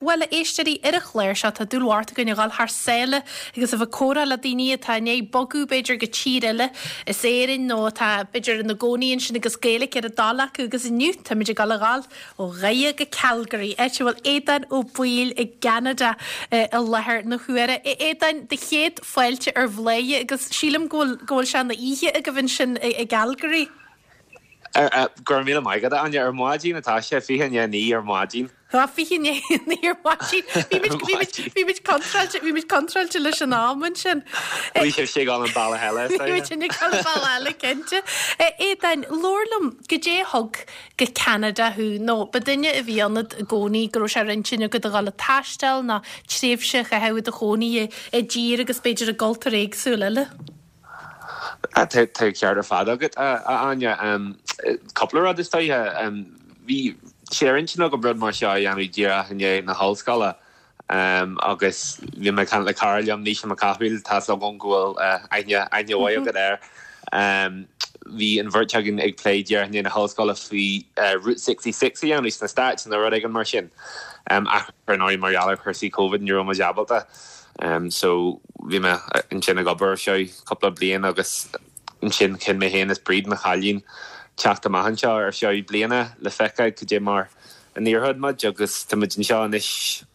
Bhuel, a éisteoirí, ar an chlár seo tá dúil mhór againn a dhul thar sáile agus a bheith ag comhrá le daoine atá i ndiaidh bogadh, b'fhéidir, go tír eile as Éirinn nó atá, b'fhéidir, ina gcónaí ansin agus Gaeilge ar a dtoil acu agus inniu táimid ag dul a dhul ó Dhoire go Calgary, áit a bhfuil Aodán Ó Baoill i gCeanada i láthair na huaire. A Aodáin, do chéad fáilte ar Bhladhaire agus sílim go bhfuil, go bhfuil sé ina oíche agaibh ansin i gCalgary. Go raibh míle maith agat, a Áine. Ar maidin atá sé, 8:40 ar maidin. Tá, 8:40 ar maidin. Bhí muid, bhí muid, bhí muid contráilte, bhí muid contráilte leis an am ansin. Bhí sibhse ag dul an bealach eile, is dóigh. Bhí muid ag dul an bealach eile, cinnte. Aodáin, labhair liom, goidé a thug go Ceanada thú, nó ba duine a bhí ionat i gcónaí go raibh sé ar intinn agat a dhul ag taisteal nó tréimhse a chaitheamh i do chónaí i dtír agus b'fhéidir i gcultúr éagsúil eile? Tá an ceart ar fad agat, a Áine. Cúpla rud is dóiche. Bhí sé ar intinn agam rud mar seo a dhéanamh díreach i ndiaidh na hollscoile agus bhí mé ag caint le cara liom, Naoise Mac Cathmhaoil, tá's agam go bhfuil aithne aithne mhaith agat air. Bhí an bheirt againn ag plé díreach i ndiaidh na hollscoile faoi Route 66 a dhéanamh sna Stáit nó rud éigin mar sin. Ach ar ndóigh mar gheall ar chúrsaí Covid ní raibh muid ábalta. So bhí mé ansin ag obair ar feadh cúpla bliain agus ansin chinn mé féin is Bríd, mo chailín, teacht amach anseo ar feadh bliana le feiceáil cad é mar a n-éireodh muid agus tá muid anseo anois,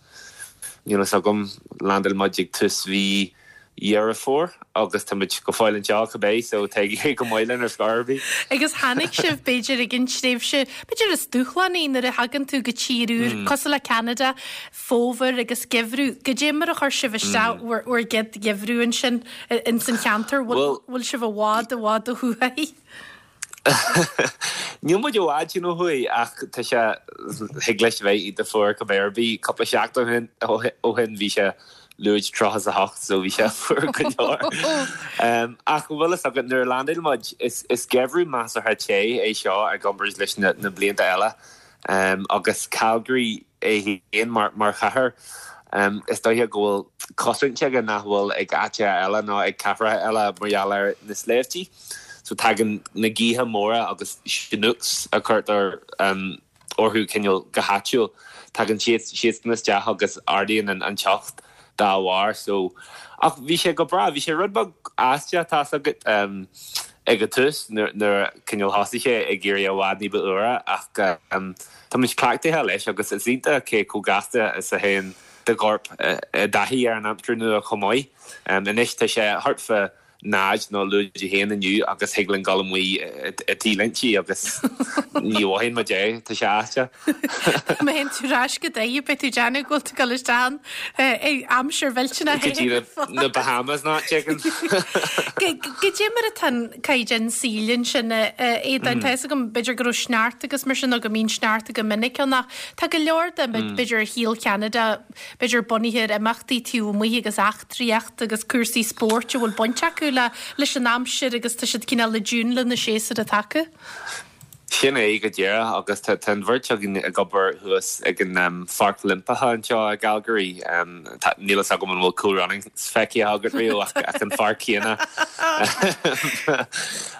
níl fhios agam, landáil muid ag tús mhí Dheireadh Fómhair agus tá muid go fóill anseo cibé so tá ag éirí go maith linn ar scor ar bith. Agus tháinig sibh b'fhéidir ag an tréimhse, b'fhéidir is dúshlánaí nuair a thagann tú go tír úr cosúil le Ceanada, fómhar agus geimhreadh. Goidé mar a chuir sibh isteach bhur bhur gcéad gheimhreadh ansin ins an cheantar? Bhfuil bhfuil sibh i bhfad i bhfad ó thuaidh? Níl muid i bhfad sin ó thuaidh ach tá sé, thig leis a bheith iontach fuar cibé ar bith. Cúpla seachtain ó shin bhí sé lúide 38 so bhí sé fuar go leor. Ach an bhfuil fhios agat nuair a landáil muid, is is geimhreadh measartha te é seo i gcomparáid leis na na blianta eile agus Calgary, é féin mar chathair. Is dóiche go bhfuil cosaint aige nach bhfuil ag áiteacha eile nó ag cathracha eile mar gheall ar na sléibhtí. So tagann na gaotha móra agus chinooks a chuirtear orthu cineál go háitiúil, tagann siadsan isteach agus ardaíonn an teocht dá bharr. So, ach bhí sé go breá, bhí sé rud beag aisteach tá's agat ag an tús nuair a cineál thosaigh sé ag éirí i bhfad ní ba fhuaire ach Tá muid cleachtaithe leis agus is iontach cé chomh gasta is a théann do chorp i dtaithí ar an aimsir nua chomh maith. Anois tá sé thart fá 0 nó lúide 1 inniu agus thig linn dul amuigh i T-léinte agus ní mhothaíonn muid é, tá sé aisteach. Má théann tú ar ais go Doire beidh tú ag déanamh go bhfuil tú ag dul isteach in aimsir mhillteanach Go dtí na Bahamas nó áit éigin. Goidé mar atá an caighdeán saoil ansin, a Aodáin. Tá fhios agam, b'fhéidir go raibh sneachta agus mar sin nó go mbíonn sneachta go minic ann ach tá go leor de, b'fhéidir, shaol Cheanada, b'fhéidir bunaithe ar imeachtaí taobh amuigh agus eachtraíocht agus cúrsaí spóirt a bhfuil baint acu le leis an aimsir agus tá siad cineál i dtiún le na séasúir atá acu. Sin é go díreach agus tá an bheirt againn ag obair thuas ag an Pháirc Oilimpeach anseo i gCalgary. Níl fhios agam an bhfuil Cool Runnings feicthe agat riamh ach an pháirc chéanna.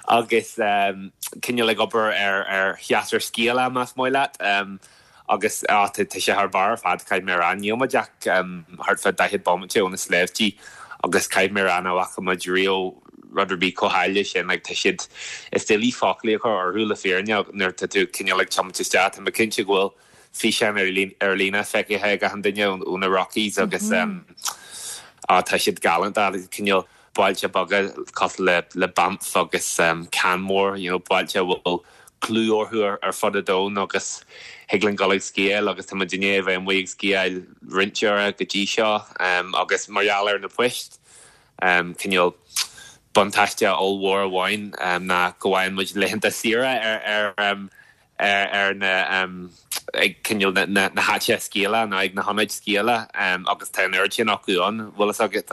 Agus cineál ag obair ar shéasúr sciála más maith leat. Agus á, tá sé thar barr ar fad, caithfidh mé a rá. Níl muid ach thart fá 40 bomaite ó na sléibhtí agus caithfidh mé a rá nach bhfaca muid riamh rud ar bith chomh háille sin. Like, tá siad, is doiligh foclaí a chur orthu le fírinne nuair atá tú cineál ag tiomáint isteach. Tá mé cinnte go bhfuil físeáin ar líne feicthe ag achan duine ó na Rockies agus á, tá siad galánta, cineál bailte beaga cosúil le le Banff agus Canmore, you know, bailte a bhfuil clú orthu ar fud an domhain agus thig linn dul ag sciáil agus tá muid i ndiaidh a bheith amuigh ag sciáil roinnt uaire go dtí seo agus mar gheall ar na poist, cineál buntáiste ollmhór amháin ná go bhfaigheann muid laethanta saoire ar ar ar na ag cineál na na háiteacha sciála nó ag na hionaid sciála agus tá an oiread sin acu ann, bhfuil fhios agat.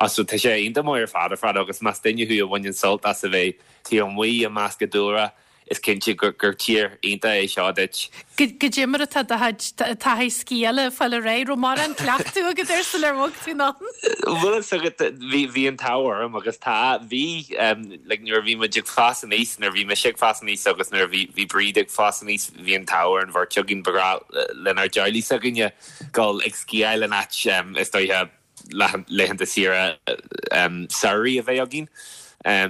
So tá sé iontach maith ar fad ar fad agus más duine thú a bhaineann sult as a bheith taobh amuigh i measc an dúlra. Is cinnte gur tír iontach é seo duit. Goidé mar atá do chuid taithí sciála ag fáil ar aghaidh? Raibh mórán cleachtadh agat air sular bhog tú anonn? Bhfuil fhios agat, bhí, bhí an t-ádh orm agus tá, bhí, like nuair a bhí muid ag fás aníos, nuair a bhí mise ag fás aníos agus nuair a bhí, bhí Bríd ag fás aníos, bhí an t-ádh ar an bheirt againn, ba ghnách lenár dteaghlaigh s'againne dul ag sciáil in áit, is dóiche, laethanta saoire samhraidh a bheith againn.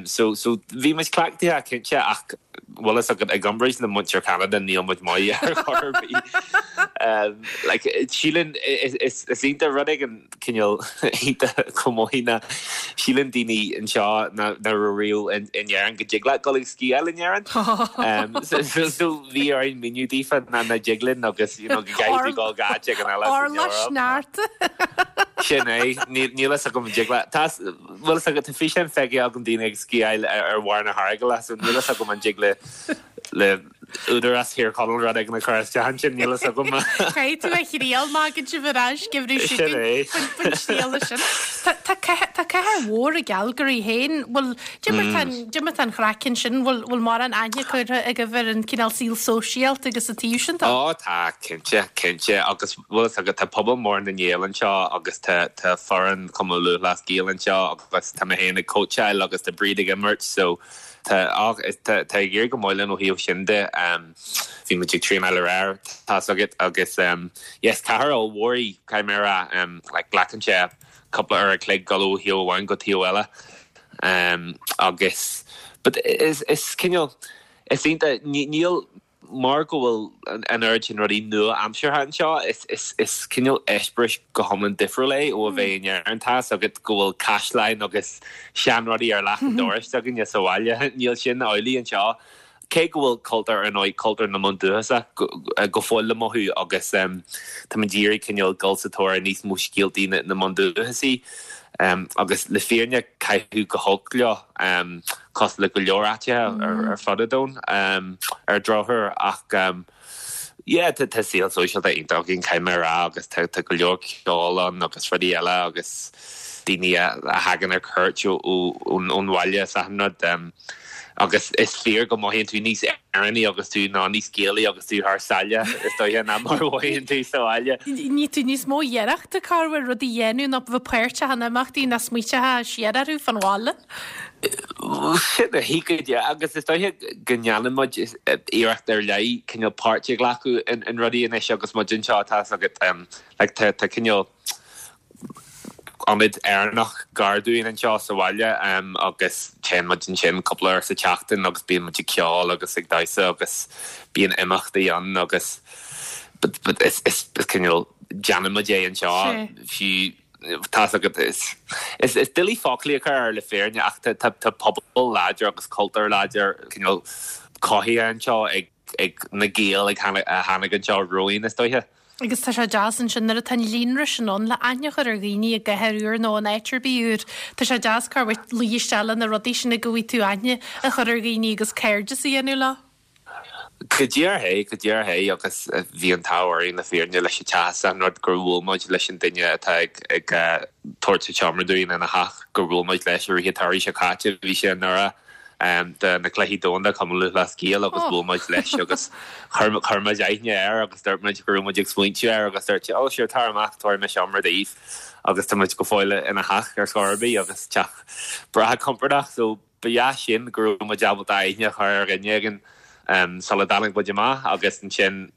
So so bhí muid cleachtaithe cinnte ach bhfuil fhios agat i gcomparáid le muintir Cheanada níl muid maith ar chor ar bith. Like síleann is is iontach rud éigin cineál iontach chomh maith ná síleann daoine anseo nach raibh riamh in in Éirinn go dtig leat dul ag sciáil in Éirinn. So so so bhí orainn míniú daofa nach nach dtig linn agus you know go gcaithfidh tú dul go áit éigin eile san Eoraip. Orlach sneachta. Sin é. Níl fhios agam an dtig leat. Tá, bhfuil fhios agat, tá físeáin feicthe agam daoine ag sciáil ar bharr na hEaragaile, so níl fhios agam an dtig le, le Údarás Thír Chonaill rud éigin a chur isteach ansin, níl fhios agam. Caithfidh tú a thriail má thagann sibh ar ais, geimhreadh seo Sin é. chugainn faoin triail sin. Tá, tá cathair, tá cathair mhór i gCalgary féin, bhfuil, dé mar tá an, dé mar tá an chraic ansin, bhfuil, bhfuil mórán aithne curtha agaibh ar an cineál saol sóisialta agus an taobh sin de? Ó tá, cinnte, cinnte, agus Bhfuil fhios agat, tá pobal mór na nGael anseo agus tá tá foireann Chumann Lúthchleas Gael anseo agus tá mé féin ag cóitseáil agus tá Bríd ag imirt so tá ach tá tá ag éirí go maith linn ó thaobh sin de. Bhí muid ag traenáil aréir, tá's agat, agus yeah is cathair ollmhór í, caithfidh mé a rá, like glacann sé cúpla uair a chloig dul ó thaobh amháin go taobh eile agus but is is cineál is iontach níl Mar go bhfuil an oiread sin rudaí nua-aimseartha anseo, is cineál eispéireas go hiomlán difriúil é ó a bheith in Éirinn. Tá's agat go bhfuil caisleáin agus seanrudaí ar leac an dorais againne sa bhaile. Níl sin amhlaidh anseo. Cé go bhfuil cultúr, ar ndóigh, cultúr na mbundúchasach go fóill le mothú agus táimid ag iarraidh cineál dul sa tóir ar níos mó scéaltaí na mbundúchasaigh. Agus le fírinne, caitheadh go holc leo, cosúil le go leor áiteacha ar fud an domhain, ar drochuair. Ach yeah, tá saol sóisialta iontach againn, caithfidh mé a rá, agus tá go leor ceoil ann agus rudaí eile agus daoine a thagann ar cuairt ón bhaile is achan rud. Agus is fíor go mothaíonn tú níos Éireannaí agus tú, nó níos Gaelaí agus tú thar sáile, is dóiche, ná mar a mhothaíonn tú sa bhaile. Ní tú níos mó iarrachta corruair rudaí a dhéanamh ná bheith páirteach in imeachtaí ná smaointeofá siar orthu fán bhaile. Sin é go díreach, agus is dóiche go ndéanann muid iarracht ar leith cineál páirt a ghlacadh in rudaí anois agus muid anseo, tá's agat, like tá cineál. ionad Éireannach gar dúinn anseo sa bhaile agus téann muid ansin cúpla uair sa tseachtain agus bíonn muid ag ceol agus ag damhsa agus bíonn imeachtaí ann agus but is is cineál déanann muid é anseo fiú tá's agat is is is doiligh foclaí a chur air le fírinne ach tá tá tá pobal láidir agus cultúr láidir cineál cothaithe anseo ag ag na Gaeil ag a tháinig anseo romhainn is dóiche. Agus tá sé deas ansin nuair atá an líonra sin ann le aithne a chur ar dhaoine i gcathair úr nó in áit ar bith úr. Tá sé deas corruair luí isteach le na rudaí sin go bhfaighidh tú aithne a chur ar dhaoine agus cairdeas a dhéanamh leo. Go díreach é, go díreach é agus bhí an t-ádh orainn le fírinne leis an teach is an rud gur bhuail muid leis an duine atá ag ag tabhairt an tseomra dúinn ina theach gur bhuail muid leis i rith an tsamhraidh seo caite, bhí sé i nDoire. do na Cluichí Domhanda Cumann Lúthchleas Gael agus bhuail muid leis agus chuir muid aithne air agus dúirt muid go raibh muid ag smaointiú air agus dúirt sé oh sure tar amach tabharfaidh mé seomra daoibh agus tá muid go fóill ina theach ar scor ar bith agus teach breá compordach so ba dheas sin go raibh muid ábalta aithne a chur ar dhuine éigin sula dtáinig muid amach agus ansin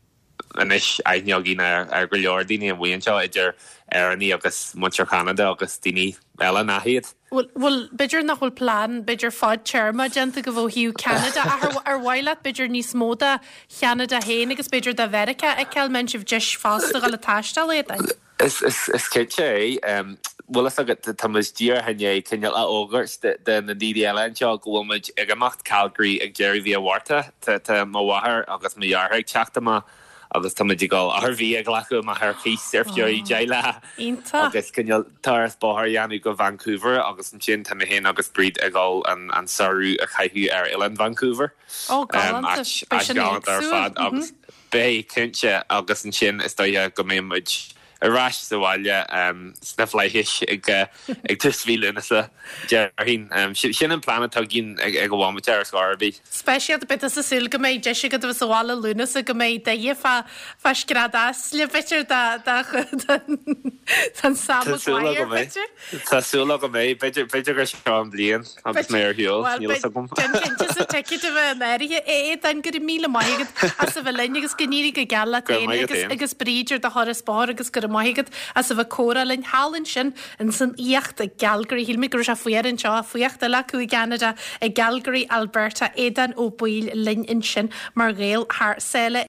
anois aithne againn ar go leor daoine amuigh anseo, idir Éireannaigh agus muintir Cheanada agus daoine eile nach iad. Bhuel, bhuel, b'fhéidir nach bhfuil plean, b'fhéidir fadtéarma déanta agaibh ó thaobh Ceanada ach ar, ar mhaith leat b'fhéidir níos mó de Cheanada féin agus b'fhéidir de Mheiriceá a fheiceáil, mbeidh sibh deis fosta dhul ag taisteal éadain? Is cinnte é. Bhfuil fhios agat, tá muid díreach i ndiaidh cineál a fhógairt do na daoine eile anseo go bhfuil muid ag imeacht Calgary ag deireadh mhí an Mhárta. Tá mo mháthair agus mo dheartháir ag teacht amach agus tá muid ag dul RV a ghlacadh amach ar cíos ar feadh 10 lá agus cineál turas bóthair a dhéanamh go Vancouver agus ansin tá mé féin agus Bríd ag dul an samhradh a chaitheamh ar Oileán Vancouver. Ó, galánta. Beidh sin galánta ar fad agus. Beidh, cinnte, agus ansin is dóiche go mbeidh muid. Ar ais sa bhaile sna flaithis ag tús mhí Lúnasa, déarfainn. Sin an plean atá againn ag an bhomaite ar scor ar bith. Speisialta, beidh tusa ag súil go mbeidh deis agat a bheith sa bhaile Lúnasa, go mbeidh d'aghaidh fá scread easla, b'fhéidir, don Sam Maguire, b'fhéidir? Tá súil agam é. B'fhéidir gur seo an bhliain agus mé ar shiúl, níl fhios agam. Déan cinnte sa ticéad a bheith in áirithe. A Aodáin, go raibh míle maith agat as a bheith linn agus go n-éirí go geal leat féin agus agus Bríd ar do thuras bóthair agus go raibh maith agat as a bheith ag comhrá linn thall ansin ins an fhuíocht i gCalgary. Shíl mé go raibh sé fuar anseo, fuíocht eile acu i gCeanada, i gCalgary, Alberta. Aodán Ó Baoill linn ansin mar Ghael thar sáile.